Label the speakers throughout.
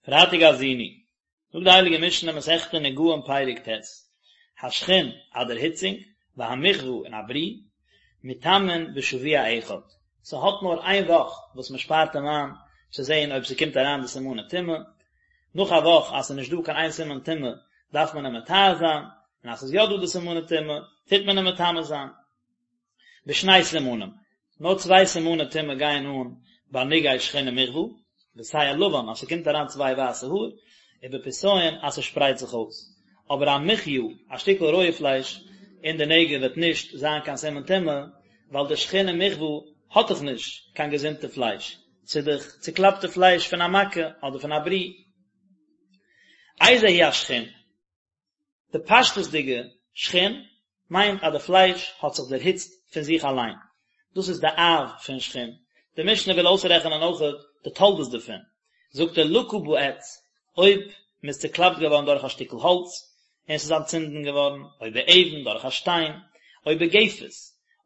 Speaker 1: פרייטאג האזינו, זאגט די הייליגע משנה מסכת נגעים פרק ט', השחין א דערהיצונג, והמכוה און א ברי, מטמאין בשבוע אחד, ס'האט נאר איין וואך וואס מ'שפארט אים איין צו זען אויב ס'קומט אריין די סימני טומאה, נאך א וואך אז ס'איז נישט דא קיין איין סימן טומאה דארף מען אים מטהר זיין, און אז ס'איז יא דא די סימני טומאה טוט מען אים מטמא זיין. בשני סימנים, נאר צוויי סימני טומאה גייען אן ביי נגעי שחין ומכוה, בשער לבן אז ס'קומט אריין צוויי ווייסע האר, ובפסיון אז ס'שפרייט זיך אויס. אבער א מחיה, א שטיקל רויע פלייש, אין די נגע וועט נישט זיין קיין סימן טומאה, ווייל די שחין און מכוה האט דאך נישט קיין געזונטע פלייש, ס'איז דאך צוקלאפטע פלייש פון א מכה אדער פון א ברי. איזהו השחין? די פשטות'דיגע שחין מיינט אז די פלייש האט זיך דערהיצט פון זיך אליין, דאס איז די אב פון שחין, די משנה וויל אויסרעכענען אויכעט די תולדות דערפון, זאגט ער לקה בעץ, אויב מען איז צוקלאפט געווארן דורך א שטיקל האלץ און עס איז אנטצינדן געווארן, או באבן דורך א שטיין, או בגפת,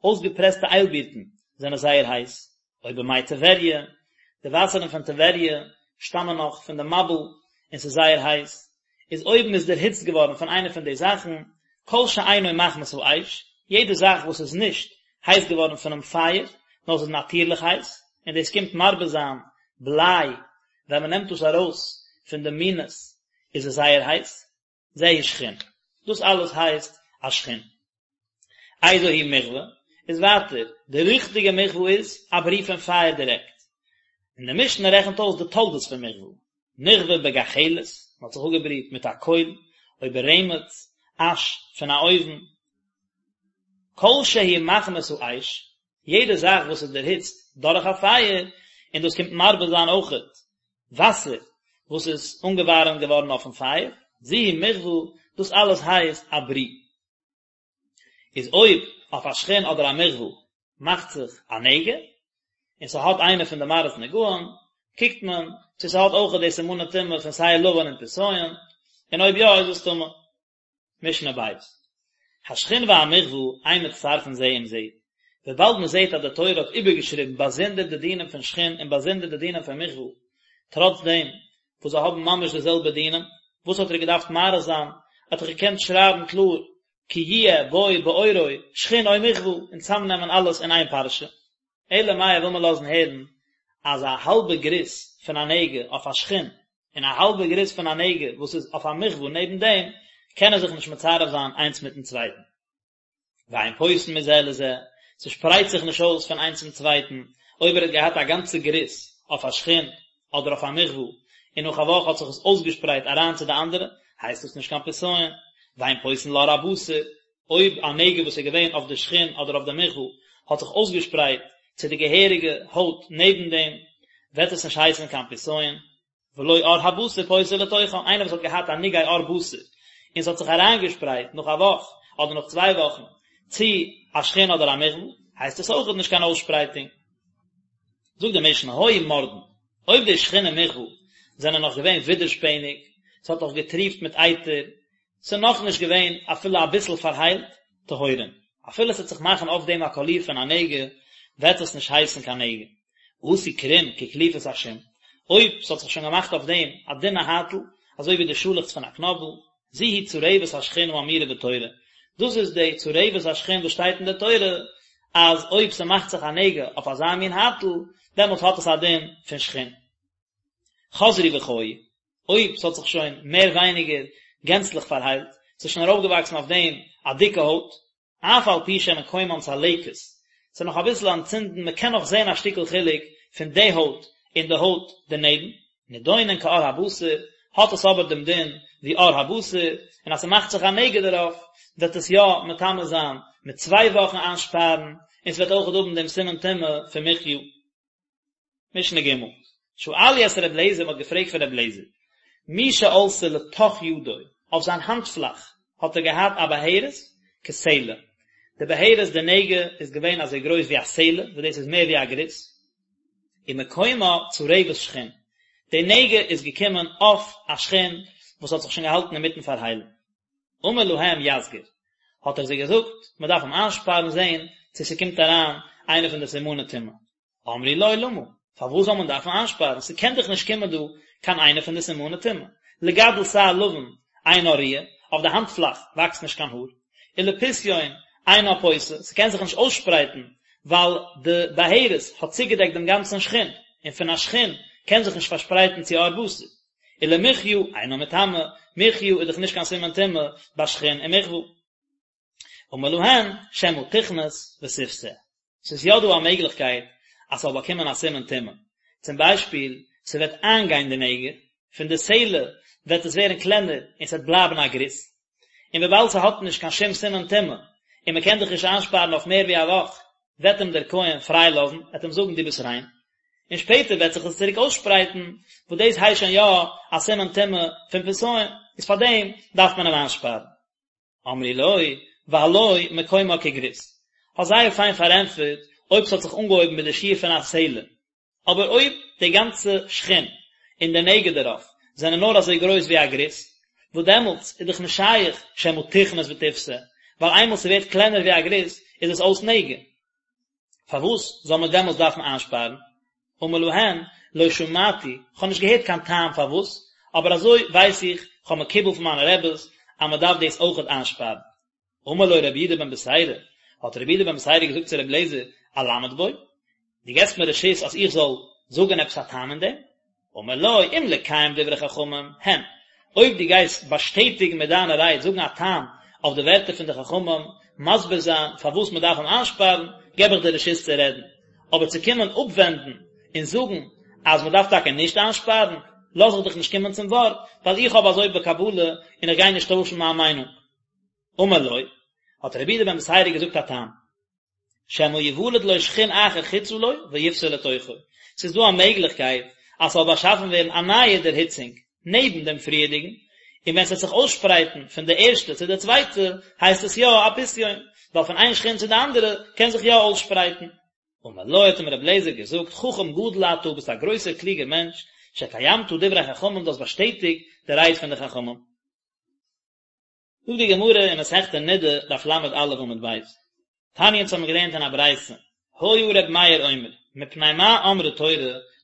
Speaker 1: אויסגעפרעסטע איילבירטן זענען זייער הייס, או במי טבריה, די וואסערן פון טבריה שטאמען נאך פון די מבול און ס'איז זייער הייס, איז אויב מ'איז דערהיצט געווארן פון איינע פון די זאכן, כל שאינו מחמת האש, יעדע זאך וואס איז נישט הייס געווארן פונעם פייער, נאר ס'איז נאטירליך הייס, און דאס קומט מרבה זיין בליי, ווען מ'נעמט דאס ארויס פון די מינעס איז עס זייער הייס, זהו שחין. דאס אלעס הייסט א שחין. איזו היא מכוה, איז ווייטער, די ריכטיגע מכוה איז א ברי פון פייער דירעקט. און די משנה רעכנט אויס די תולדות פון מכוה. נכוה בגחלת, מען האט זיך אפגעבריט מיט א קויל, או ברמץ, אש פון א אויוון. כל שהוא מחמת האש, יעדע זאך וואס איז דערהיצט דורך א פייער, און דאס קומט מרבה זיין אויכעט וואסער וואס איז אנגעווארעמט געווארן אויפן פייער, זו היא מכוה, דאס אלעס הייסט א ברי. איז אויב אויף א שחין אדער א מכוה מאכט זיך א נגע, און ס'האט איינע פון די מראות נגעים, קוקט מען צו ס'האט אויכעט די סימני טומאה פון שער לבן און פסיון, און אויב יא איז עס טמא. משנה בית. השחין והמכוה אין מצטרפין זה עם זה, וויבאלד מען זעט אז די תורה האט איבערגעשריבן באזונדער די דינים פון שחין און באזונדער די דינים פון מכוה, טראץ דעם וואס זיי האבן ממש די זעלבע דינים, וואס האט ער געדארפט מאריך זיין, האט ער געקענט שרייבן קלאר כי יהיה בו בעורו שחין או מכוה און צאמנעמען אלעס אין איין פרשה. אלא מאי וויל מען לאזן הערן אז א האלבע גריס פון א נגע אויף א שחין און א האלבע גריס פון א נגע וואס איז אויף א מכוה נעבן דעם קענען זיך נישט מצרף זיין איינס מיטן צווייטן. ואין פוסין מזה לזה, ס'שפרייט זיך נישט אויס פון איינס צום צווייטן, אויב ער האט געהאט א גאנצע גריס אויף א שחין אדער אויף א מכוה און נאך א וואך האט זיך עס אויסגעשפרייט אריין צו די אנדערע, הייסט דאס נישט קיין פסיון. ואין פוסין לעור הבשר, אויב א נגע וואס איז געווען אויף די שחין אדער אויף די מכוה האט זיך אויסגעשפרייט צו די געהעריגע הויט נעבן דעם, וועט עס נישט הייסן קיין פסיון. ולא עור הבשר פוסה לתוכן, איינער וואס האט געהאט א נגעי עור בשר און ס'האט זיך אריינגעשפרייט נאך א וואך אדער נאך צוויי וואכן צו א שחין אדער א מכוה, הייסט עס אויכעט נישט קיין אויסשפרייטונג. זאגט די משנה, היו מורדין, אויב די שחין און מכוה זענען נאך געווען ווידערשפעניג, ס'האט נאך געטריפט מיט אייטער, ס'איז נאכנישט געווען אפילו אביסל פארהיילט, טהורין. אפילו ס'וועט זיך מאכן אויף דעם א קאליר פון א נגע, וועט עס נישט הייסן קיין נגע. עשו קרום כקליפת השום, אויב ס'האט זיך שוין געמאכט אויף דעם א דינע הייטל, אזוי ווי די שאלעכץ פון א קנאבל, זו היא צרבת השחין האמורה בתורה, דאס איז די צרבת השחין וואס שטייט אין די תורה, אז אויב ס'מאכט זיך א נגע אויף אזא מין הייטל, דעמאלטס האט עס א דין פון שחין. חזרו וחיו, אויב ס'האט זיך שוין מער ווייניגער גענצליך פארהיילט, ס'איז שוין ארויפגעוואקסן אויף דעם א דיקע הויט, אף על פי שמקומן צלקת, ס'איז נאך אביסל אנטצינדן, מ'קען נאך זען א שטיקל חילוק פון די הויט און די הויט דערנעבן, נידונין כעור הבשר, האט עס אבער דעם דין ווי עור הבשר, און אז ס'מאכט זיך א נגע דערויף, וועט עס יא מטמא זיין מיט צוויי וואכן איינשפארן, און ס'וועט אויכעט האבן דעם סימן טומאה פון מחיה. משנה ג', שאלו את ר' אליעזר, מ'האט געפרעגט פון ר' אליעזר, מי שעלתה לתוך ידו, אויף זיין האנט פלאך האט ער געהאט א בהרת כסלע, די בהרת די נגע איז געווען אזוי גרויס ווי א סלע, וואס דאס איז מער ווי א גריס, ומקומה צרבת שחין, די נגע איז געקומען אויף א שחין וואס האט זיך שוין געהאלטן אינמיטן פארהיילן. אמר להם יסגיר, האט ער זיי געזאגט, מען דארף אים איינשפארן זען צו ס'קומט אריין איינע פון די סימני טומאה. אמרו לו למה, פארוואס זאל מען דארפן איינשפארן, ס'קען דאך נישט קומען דא. קיין איינע פון די סימני טומאה. לגדל שער לבן אינה ראויה, אויף די האנט פלאך וואקסט נישט קיין האר. ולפשיון אינה פושה, ס'קען זיך נישט אויסשפרייטן ווייל די בהרת האט צוגעדעקט דעם גאנצן שחין, און פון א שחין קען זיך נישט פארשפרייטן צו עור בשר. ולמחיה אינה מטמאה, מחיה איז דאך נישט קיין סימן טומאה ביי שחין און מכוה. אמר להן, שמא תכנוס ותפשה. ס'איז יא דא א מעגליכקייט אז ס'זאל באקומען א סימן טומאה. צום ביישפיל, ס'וועט איינגיין די נגע, פון די סלע וועט עס ווערן קלענער און ס'וועט בלייבן א גריס. און וויבאלד ס'האט נישט קיין שום סימן טומאה, און מ'קען דאך נישט איינשפארן אויף מער ווי א וואך, וועט אים דער כהן פריי לאזן, ער וועט אים זאגן דו ביסט ריין. און שפעטער וועט זיך עס צוריק אויסשפרייטן, וואס דאס הייסט שוין יא א סימן טומאה פון פסיון, איז פארדעם דארף מען אים איינשפארן. אמרו לו, והלא מקומה כגריס. האסט זייער פיין פארענטפערט אויב ס'האט זיך אנגעהויבן מיט די שיעור פון א סלע. אבער אויב די גאנצע שחין און די נגע דערויף זענען נאר אזוי גרויס ווי א גריס, וואס דעמאלטס איז דאך נישט שייך שמא תכנוס ותפשה, ווייל איינמאל ס'ווערט קלענער ווי א גריס איז עס אויס נגע. פארוואס זאל מען דעמאלטס דארפן איינשפארן? אמר להן, לא שמעתי, כ'האב נישט געהערט קיין טעם פארוואס, אבער אזוי ווייס איך, כ'האב מקובל פון מיינע רעבעס, אז מען דארף דאס אויכעט איינשפארן. אמר לו רבי יהודה בן בתירא, האט רבי יהודה בן בתירא געזאגט צו רבי אליעזר, אלמד בו? דו געבסט מיר רשות אז איך זאל זאגן עפעס א טעם אין דעם? אמר לו, אם לקיים דברי חכמים, הן, אויב דו גייסט באשטעטיגן מיט דיינע רייד, זאגן א טעם אויף די ווערטער פון די חכמים, מסביר זיין פארוואס מען דארף אים איינשפארן, געב איך דיר רשות צו רעדן. אבער צו קומען אפווענדן און זאגן אז מען דארף טאקע נישט איינשפארן, לאז איך דיך נישט קומען צום ווארט, ווייל איך האב אזוי בקבלה און איך גיי נישט טוישן מיין מיינונג. אמר לו, האט רבי יהודה בן בתירא געזאגט א טעם. שמא יוולד לו שחין אחר חוצה לו ויפשה לתוכו, ס'איז דא א מעגליכקייט אז ס'זאל באשאפן ווערן א נייע דערהיצונג נעבן דעם פריערדיגן, און ווען ס'וועט זיך אויסשפרייטן פון די ערשטע צו די צווייטע הייסט עס יא א פסיון, ווייל פון איין שחין צו די אנדערע קען זיך יא אויסשפרייטן. אמר לו האט אים רבי אליעזר געזאגט, חכם גדול אתה, ביסט א גרויסער קלוגער מענטש, שקיימת דברי חכמים, דו האסט באשטעטיגט די רייד פון די חכמים. זאגט די גמרא אין מסכת נדה, דף ל"א עמוד ב', תניא אונז האבן געלערנט אין א ברייתא, היה ר' מאיר אומר, מפני מה אמרה תורה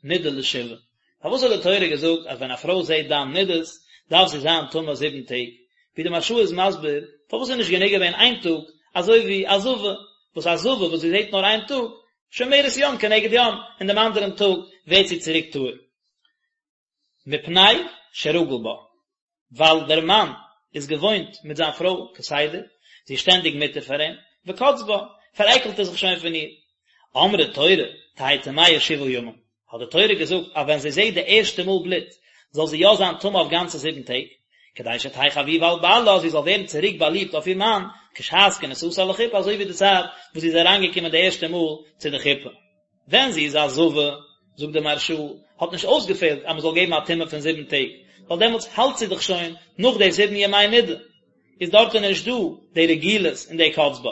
Speaker 1: נדה לשבעה, פארוואס האט די תורה געזאגט אז ווען א פרוי זעט דם נדות דארף זי זיין טמא זיבן טעג, ווי די מהרש"א איז מסביר, פארוואס איז נישט גענוג געווען איין טאג, אזוי ווי א זבה, וואס א זבה וואס זי זעט נאר איין טאג, שומרת יום כנגד יום, און דעם אנדערן טאג ווערט זי צוריק טהור. מפני שרגיל בה, ווייל דער מאן איז געוואוינט מיט זיין פרוי כסדר, זי איז שטענדיג מותר פאר אים, וקץ בה, פארעקלט ער זיך שוין פון איר. אמרה תורה, תהא טמאה שבעה ימים, האט די תורה געזאגט אז ווען זי זעט די ערשטע מאל בלוט, זאל זי יא זיין טמא אויף גאנצע זיבן טעג, כדי שתהא חביבה על בעלה, זי זאל ווערן צוריק באליבט אויף איר מאן, כשעת כניסתה לחופה, אזוי ווי די צייט וואס זי איז אריינגעקומען די ערשטע מאל צו די חופה. ווען זי איז א זבה, זאגט דער מהרש"א, האט נישט אויסגעפעלט אז מען זאל געבן א טומאה פון זיבן טעג, ווייל דעמאלטס האלט זי דאך שוין נאך די זיבן ימי נידה, איז דארטן נישט דא די רגילות און די קץ בה.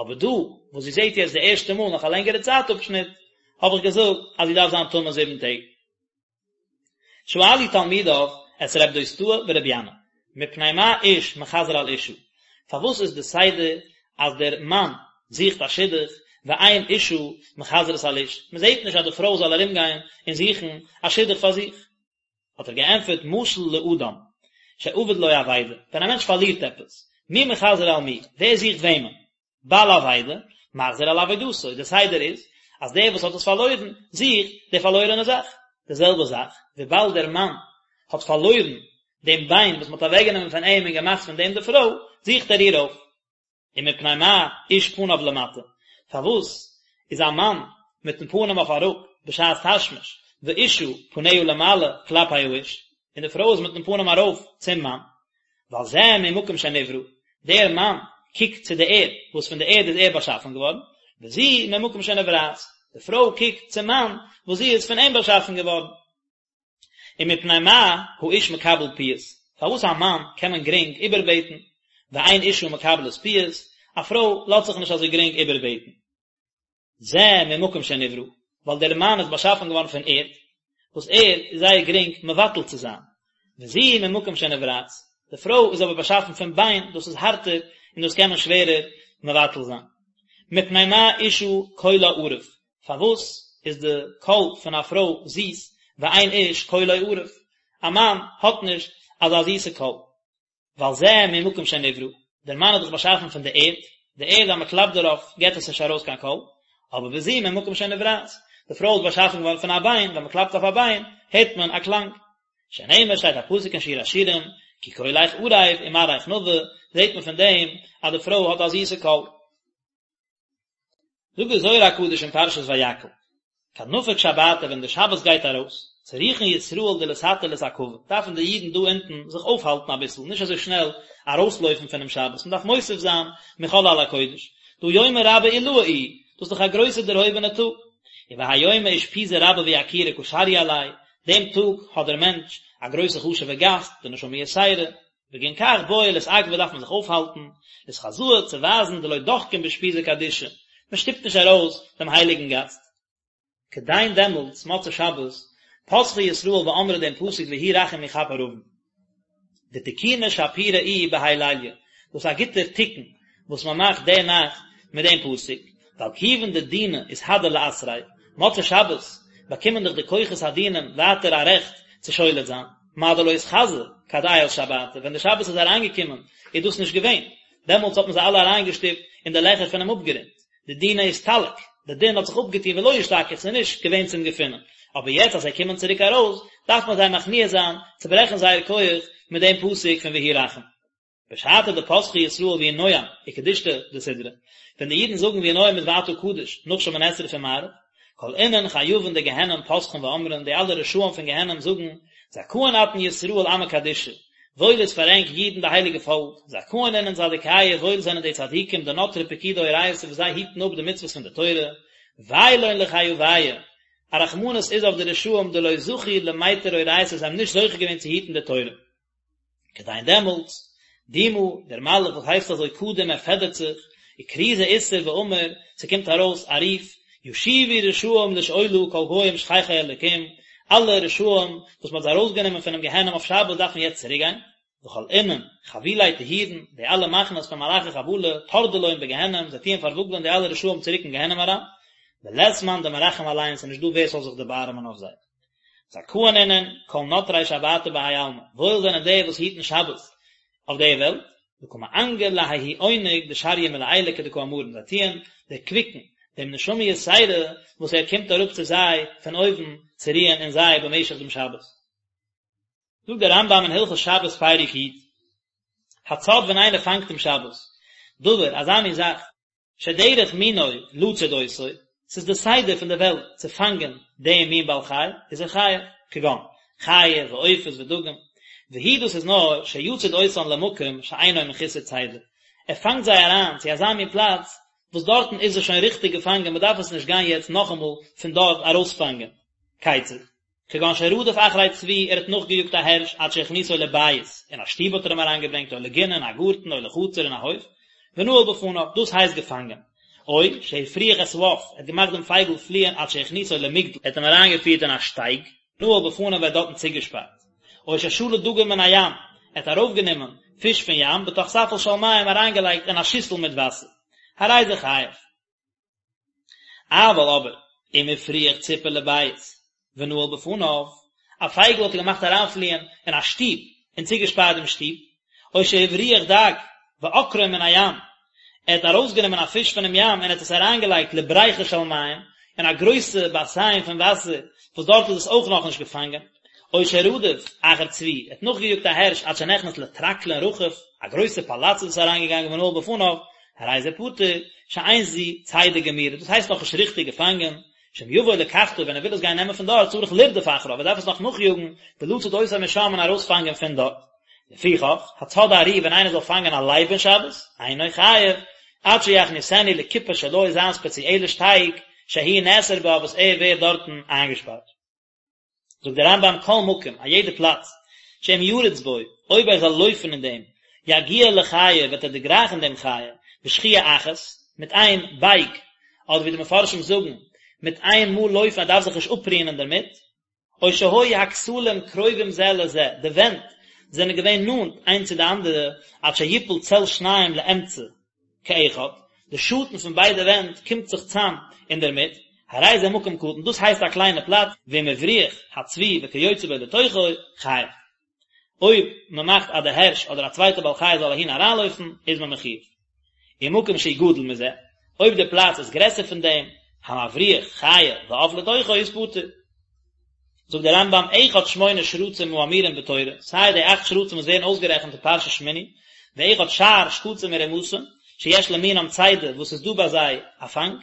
Speaker 1: אבער דא, וואס זי זעט יעצט די ערשטע מאל נאך א לענגערע צייט אפשניט, האב איך געזאגט אז זי דארף זיין טמא זיבן טעג. שאלו תלמידיו את רב דוסתאי ברבי ינאי, מפני מה איש מחזר על אשה, פארוואס איז די סדר אז דער מאן זוכט א שידוך ואין אשה מחזרת על איש, מען זעט נישט אז די פרוי זאל ארום גיין און זוכן א שידוך פאר זיך? האט ער געענטפערט משל לאדם שאבד לו אבידה, ווען א מענטש פארלירט עפעס, מי מחזר על מי, ווער זוכט וועמען? בעל אבידה, מחזיר על אבידתו, די סדר איז אז דער וואס האט עס פארלוירן זוכט די פארלוירענע זאך, די זעלבע זאך, וויבאלד דער מאן האט פארלוירן דעם ביין וואס מען האט אוועקגענומען פון אים און געמאכט פון דעם די פרוי, זוכט ער איר אויף. ומפני מה איש פניו למטה, פארוואס איז א מאן מיטן פנים אויף אראפ בשעת תשמיש, ואשה פניה למעלה כלפי האיש, און די פרוי איז מיטן פנים ארויף צום מאן, ווייל זה ממקום שנברא, דער מאן קוקט צו די ערד, וואס פון די ערד איז ער באשאפן געווארן, וזו ממקום שנבראת, די פרוי קוקט צום מאן, וואס זי איז פון אים באשאפן געווארן. ומפני מה האיש מקבל פיוס, פארוואס א מאן קען מען גרינג איבערבעטן, ואין אשה מקבלת פיוס, א פרוי לאזט זיך נישט אזוי גרינג איבערבעטן. זה ממקום שנברא, ווייל דער מאן איז באשאפן געווארן פון ערד, וואס ערד איז זייער גרינג מבטל צו זיין, וזו ממקום שנבראת, די פרוי איז אבער באשאפן פון ביין, דאס איז הארטער און דאס קען מען שווערער מבטל זיין. מפני מה אשה קולה ערב, פארוואס איז די קול פון א פרוי זיס, ואין איש קולו ערב? א מאן האט נישט אזא זיסע קול. ווייל זה ממקום שנברא, דער מאן איז דאך באשאפן פון די ערד, די ערד אז מען קלאפט דערויף געבט עס נישט ארויס קיין קול, אבער וזו ממקום שנבראת, די פרוי איז באשאפן געווארן פון א ביין, ווען מען קלאפט אויף א ביין הערט מען א קלאנג. שנאמר שטייט א פסוק אין שיר השירים, כי קולך ערב ומראיך נאוה, זעט מען פון דעם אז די פרוי האט א זיסע קול. זאגט דער זוהר הקדוש אין פרשת ויקהל, כד נפיק שבתא ווען די שבת גייט ארויס, צריכין ישראל דלתתא לאתעכבא, דארפן די אידן דא אונטן זיך אויפהאלטן אביסל, נישט אזוי שנעל ארויסלויפן פונעם שבת, מען דארף מוסיף זיין מחול על הקודש, דהא יומא רבא עילאה איהו, דאס איז דאך א גרויסע דערהויבענע טאג, ובהאי יומא אושפיזא רבא ויקירא קא שריא עליה, דעם טאג האט דער מענטש א גרויסע חשוב'ע גאסט, די נשמה יתירה, בגין כך בעי לאתעכבא דארף מען זיך אויפהאלטן, לאתחזאה צו ווייזן דלא דחקין באושפיזא קדישא, מען שטופט נישט ארויס דעם הייליגן גאסט. כדין דעמאלטס, מוצאי שבת, פתחי ישראל ואמרי דעם פסוק והוא רחום יכפר עון. דתיקונא שפירא איהו בהאי ליליא, דאס איז א גוטער תיקון וואס מען מאכט די נאכט מיט דעם פסוק, ווייל כיוון דדינא אתהדר לאתריה, מוצאי שבת באקומען דאך די כוחות הדינים ווייטער א רעכט צו שולט זיין, מה דלא אתחזי כד עייל שבתא, ווען די שבת איז אריינגעקומען איז דאס נישט געווען, דעמאלטס האט מען זיי אלע אריינגעשטופט אין די לעכער פונעם אפגרונט, דדינא אסתלק, די דין האט זיך אפגעטון ולא אשתכח, ס'איז נישט געווען צום געפינען, אבער יעצט אז זיי קומען צוריק ארויס, דארף מען זיי מכניע זיין, צוברעכן זייער כח מיט דעם פסוק פון והוא רחום. בשעתא דפתחי ישראל ויהי נועם וקדושתא דסדרא, ווען די אידן זאגן ויהי נועם מיט ואתה קדוש נאך שמונה עשרה פון מעריב, כל אינון חייבין דגיהנם פתחין ואמרין, די אלע רשעים פון גיהנם זאגן, זכאין אתון ישראל עמא קדישא, וואויל איז פאר ענק אידן די הייליגע פאלק, זכאין אינון צדיקיא, וואויל זענען די צדיקים דנטרי פקודי אורייתא וואס זיי היטן אפ די מצוות פון די תורה, ווי לון לחייביא, א רחמנות איז אויף די רשעים דלא זכו למיטר אורייתא זיי האבן נישט זוכה געווען צו היטן די תורה. כדין דעמאלטס, דומה, דער מלאך וואס הייסט אזוי קדים ער פעדערט זיך, וכרוזא אתער ואמר, ס'קומט ארויס א רוף, ישובו רשעים לשאולה כל גוים שכחי אלקים, אלע רשעים וואס מ'האט זיי ארויסגענומען פונעם גיהנום אויף שבת דארפן יעצט צוריקגיין, וכל אינון חבילי טהירין, די אלע מחנות פון מלאכי חבלה, טרדי לון בגיהנום, זיי טוען פארוואגלען די אלע רשעים צוריק אין גיהנום אריין, ולית מאן דמרחם עליהון, ס'איז נישט דא ווער ס'זאל זיך דערבארעמען אויף זיי. זכאין אינון כל נטרי שבתא בהאי עלמא, וואויל זענען די וואס היטן שבת אויף די וועלט, דקא מענגי לההוא עונג דשריא מלעילא כדקאמרן, זיי טוען דערקוויקן דעם נשמה יתירה וואס ער קומט אראפ צו זיי פון אויבן צו רוען אין זיי במשך דעם שבת. זאגט דער רמב"ם אין הלכות שבת פרק י', הצד ווען איינער פאנגט אום שבת, דבר, אזא מין זאך, שדרך מינו לצוד אותו, ס'איז די סדר פון די וועלט צו פאנגען דעם מין בעל חי, איז ער חייב, כגון, חיה ועופות ודגים, והוא דאס איז נאר שיצוד אותן למקום שאינו מחוסר צידה, ער פאנגט זיי אריין צו אזא מין פלאץ וואס דארטן איז עס שוין ריכטיג געפאנגען מ'דארף עס נישט גיין יעצט נאכאמאל פון דארט ארויספאנגען. כיצד? כגון שרדף אחרי צבי, ער האט נאכגעיאגט א הערש עד שהכניסו לבית, אין א שטוב האט ער אים אריינגעברענגט, או לגינה, אין א גארטן, או לחצר, אין א הויף, ונעל בפניו, דאס הייסט געפאנגען. או שהפריח את העוף, ער האט געמאכט דעם פייגל פליען עד שהכניסו למגדל, ער האט אים אריינגעפירט אין א שטייג, נעל בפניו ער האט דארטן צוגעשפארט. או ששלה דגים מן הים, ער האט ארויפגענומען פיש פון ים, בתוך ספל של מים אריינגעלייגט אין א שיסל מיט וואסער. הרי זה חייב. אבל אבער, אם הפריח ציפור לבית ונעל בפניו, א פייגל האט ער געמאכט אריינפליען אין א שטוב און צוגעשפארט דעם שטוב, או שהבריח דג ועקרו מן הים, ער האט ארויסגענומען א פיש פונעם ים און האט עס אריינגעלייגט לבריכה של מים, אין א גרויסע באסיין פון וואסער, וואס דארט איז עס אויך נאכנישט געפאנגען, או שרדף אחר צבי, ער האט נאכגעיאגט א הערש עד שנכנס לטרקלין רחב, א גרויסע פאלאץ איז עס אריינגעגאנגען ונעל בפניו, הרי זה פטור, שאין זו צידה גמורה, דאס הייסט נאכנישט ריכטיג געפאנגען, שאם יבוא לקחתו ווען ער וויל עס גיין נעמען פון דארט צריך לרדוף אחריו, ער דארף עס נאך נאכיאגן, ולצוד אותו משם און ארויספאנגען פון דארט. לפיכך, הצד ארי ווען איינער זאל פאנגען א לייב אין שבת, אינו חייב, עד שיכניסנו לכיפה שלו זיין ספעציעלע שטייג, שהוא נאסר בה וואס ער ווערט דארטן איינגעשפארט. זאגט דער רמב"ם כל מקום, א יעדע פלאץ, שאם ירוץ בו, אויב ער זאל לויפן אין דעם, יגיע לחיה, וועט ער דערגרייכן דעם חיה, בשחייה אחת, מיט איין בייג, אדער ווי די מפרשים זאגן, מיט איין מאל לויפן, ער דארף זיך נישט אפרוען אינדערמיט, או שהיו הכתלים קרובים זה לזה, די ווענט זענען געווען נאנט איינס צו די אנדערע, עד שיפול צל שניהם לאמצע, כאחד, די שאטן פון ביידע ווענט קומט זיך צאם אינדערמיט, הרי זה מקום קטן, דאס הייסט א קליינע פלאץ, ואם הבריח הצבי וכיוצא בו לתוכו, חייב. אויב מען מאכט אז די הערש אדער א צווייטע בעל חי זאל אהין אריינלויפן, איז מען מחיוב. ומקום שהוא גדול מזה, אויב די פלאץ איז גרעסער פון דעם, המבריח חיה ועוף לתוכו איז פטור. זאגט דער רמב"ם, אחד שמונה שרצים האמורים בתורה, סיי די אכט שרצים וואס ווערן אויסגערעכנט אין פרשת שמיני, ואחד שאר שקצים ורמשים, שיש למינם צידה וואס איז דא ביי זיי א פאנג,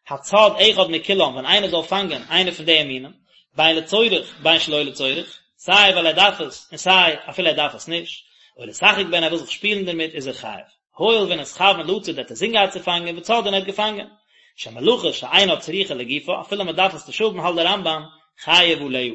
Speaker 1: הצד אחד מכולם ווען איינער זאל פאנגען איינער פון די מינים, בין לצורך בין שלא לצורך, סיי ווייל ער דארף עס און סיי אפילו ער דארף עס נישט, או לשחק בהן ער וויל זיך שפילן דערמיט איז ער חייב. הואיל ונתכוון לצוד ער האט אינזין געהאט צו פאנגען וצד און ער האט געפאנגען. שמלאכה שאינה צריכה לגופה אפילו מען דארף עס נישט האבן האלט דער רמב"ם חייב עליה.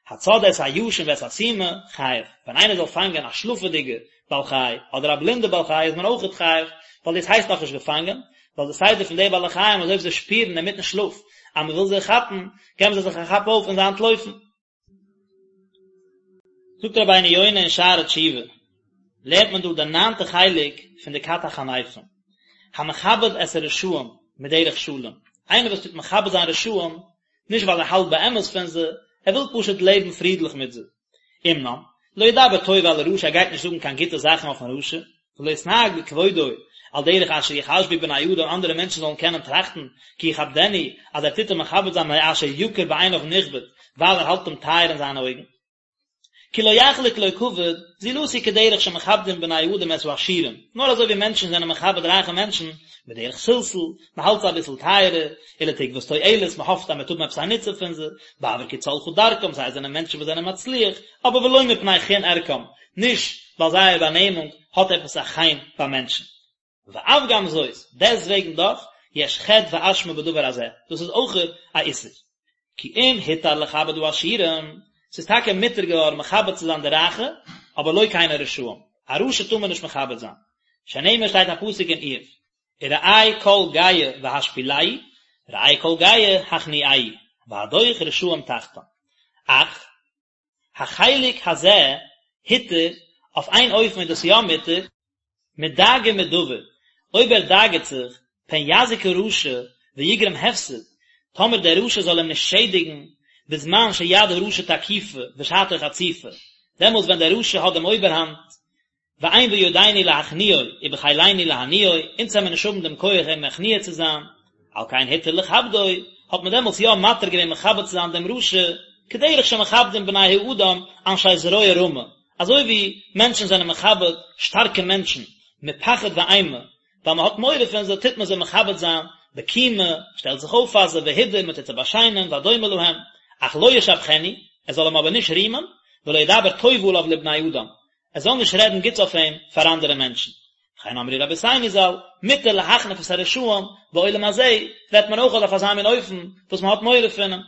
Speaker 1: הצד את הישן ואת הסומא, חייב. ווען איינער זאל פאנגען א שלאפעדיגע בעל חי, אדער א בלינדע בעל חי איז מען אויכעט חייב, ווייל דאס הייסט נאכנישט געפאנגען, ווייל די סדר פון די בעלי חיים אז אויב זיי שפירן אינמיטן שלאף אז מען וויל זיי כאפן, געבן זיי זיך א כאפ אויף און זיי אנטלויפן. זאגט רבינו יונה אין שערי תשובה, לערנט מען דא די ניינטע חלק פון די כת החניפים, המכבד את הרשעים מדרך שלום, איינער וואס טוט מכבד זיין רשעים, נישט ווייל ער האלט באמת פון זיי, ער וויל פשוט לעבן פרידליך מיט זיי. אמנם, לא ידבר טוב על הרשע ער גייט נישט זאגן קיין גוטע זאכן אויפן רשע, ולא יתנהג בכבודו, על דרך אשר יחשבו בני אדם אנדערע מענטשן זאלן קענען טראכטן, כי יכבדנו, אז ער טוט אים מכבד זיין מאשר יקר בעיניו נכבד, ווייל ער האלט אים טייער אין זיינע אויגן. כי לא יחלוק לו כבוד, זולתי כדרך שמכבדים בני אדם את העשירים, נאר אזוי ווי מענטשן זענען מכבד רייכע מענטשן, בדרך סלסול, מען האלט זיי אביסל טייערער, ולתקוות תועלת, מען האפט אז מען וועט האבן עפעס א נוצן פון זיי, בעבור כי צלחה דרכם, זיי זענען מענטשן וואס זענען מצליח, אבער ולא מפני חן ערכם, נישט ווייל זייער באנעמונג האט עפעס א חן ביי מענטשן. ואף גם זאת, דעסטוועגן דאך, יש חטא ואשמה בדבר הזה, דאס איז אויכעט א איסור. כי אם הותר לכבד העשירים, ס'איז טאקע מותר געווארן מכבד צו זיין די רייכע, אבער לא כן הרשעים, א רשע טאר מען נישט מכבד זיין. שנאמר שטייט א פסוק אין איוב, וראה כל גאה והשפילהו, ראה כל גאה הכניעהו, והדוך רשעים תחתם. אך, החלק הזה הותר, אויף איין אופן איז דאס יא מותר, מדאגה מדבר, אויב ער דאגה'ט זיך, פן יזיק הרשע ויגרום הפסד, טאמער דער רשע זאל אים נישט שעדיגן, בזמן שיד הרשע תקיפה ושעתו חציפה, דעמאלטס ווען דער רשע האט דעם אויבערהאנט, ואין בידינו להכניעו ובחילנו להניעו, אונז וועמיר נישט האבן דעם כח אים מכניע צו זיין, על כן הותר לכבדו, האט מען דעמאלטס יא מתיר געווען מכבד צו זיין דעם רשע, כדרך שמכבדים בני האדם אנשי זרוע רמה, אזוי ווי מענטשן זענען מכבד שטארקע מענטשן, מפחד ואימה, ווייל מען האט מורא פון זיי טוט מען זיי מכבד זיין, בקימה, שטעלט זיך אויף פאר זיי, והידור, מען טוט זיי באשיינען, והדומה להם, אך לא ישבחנו, ער זאל אים אבער נישט רימען, ולא ידבר טוב עליו לבני אדם, ער זאל נישט רעדן גוטס אויף אים פאר אנדערע מענטשן. וכן אמרו רבותינו ז"ל, מותר להחניף את הרשעים, בעולם הזה רעדט מען אויך אויף אזא מין אופן וואס מען האט מורא פון אים.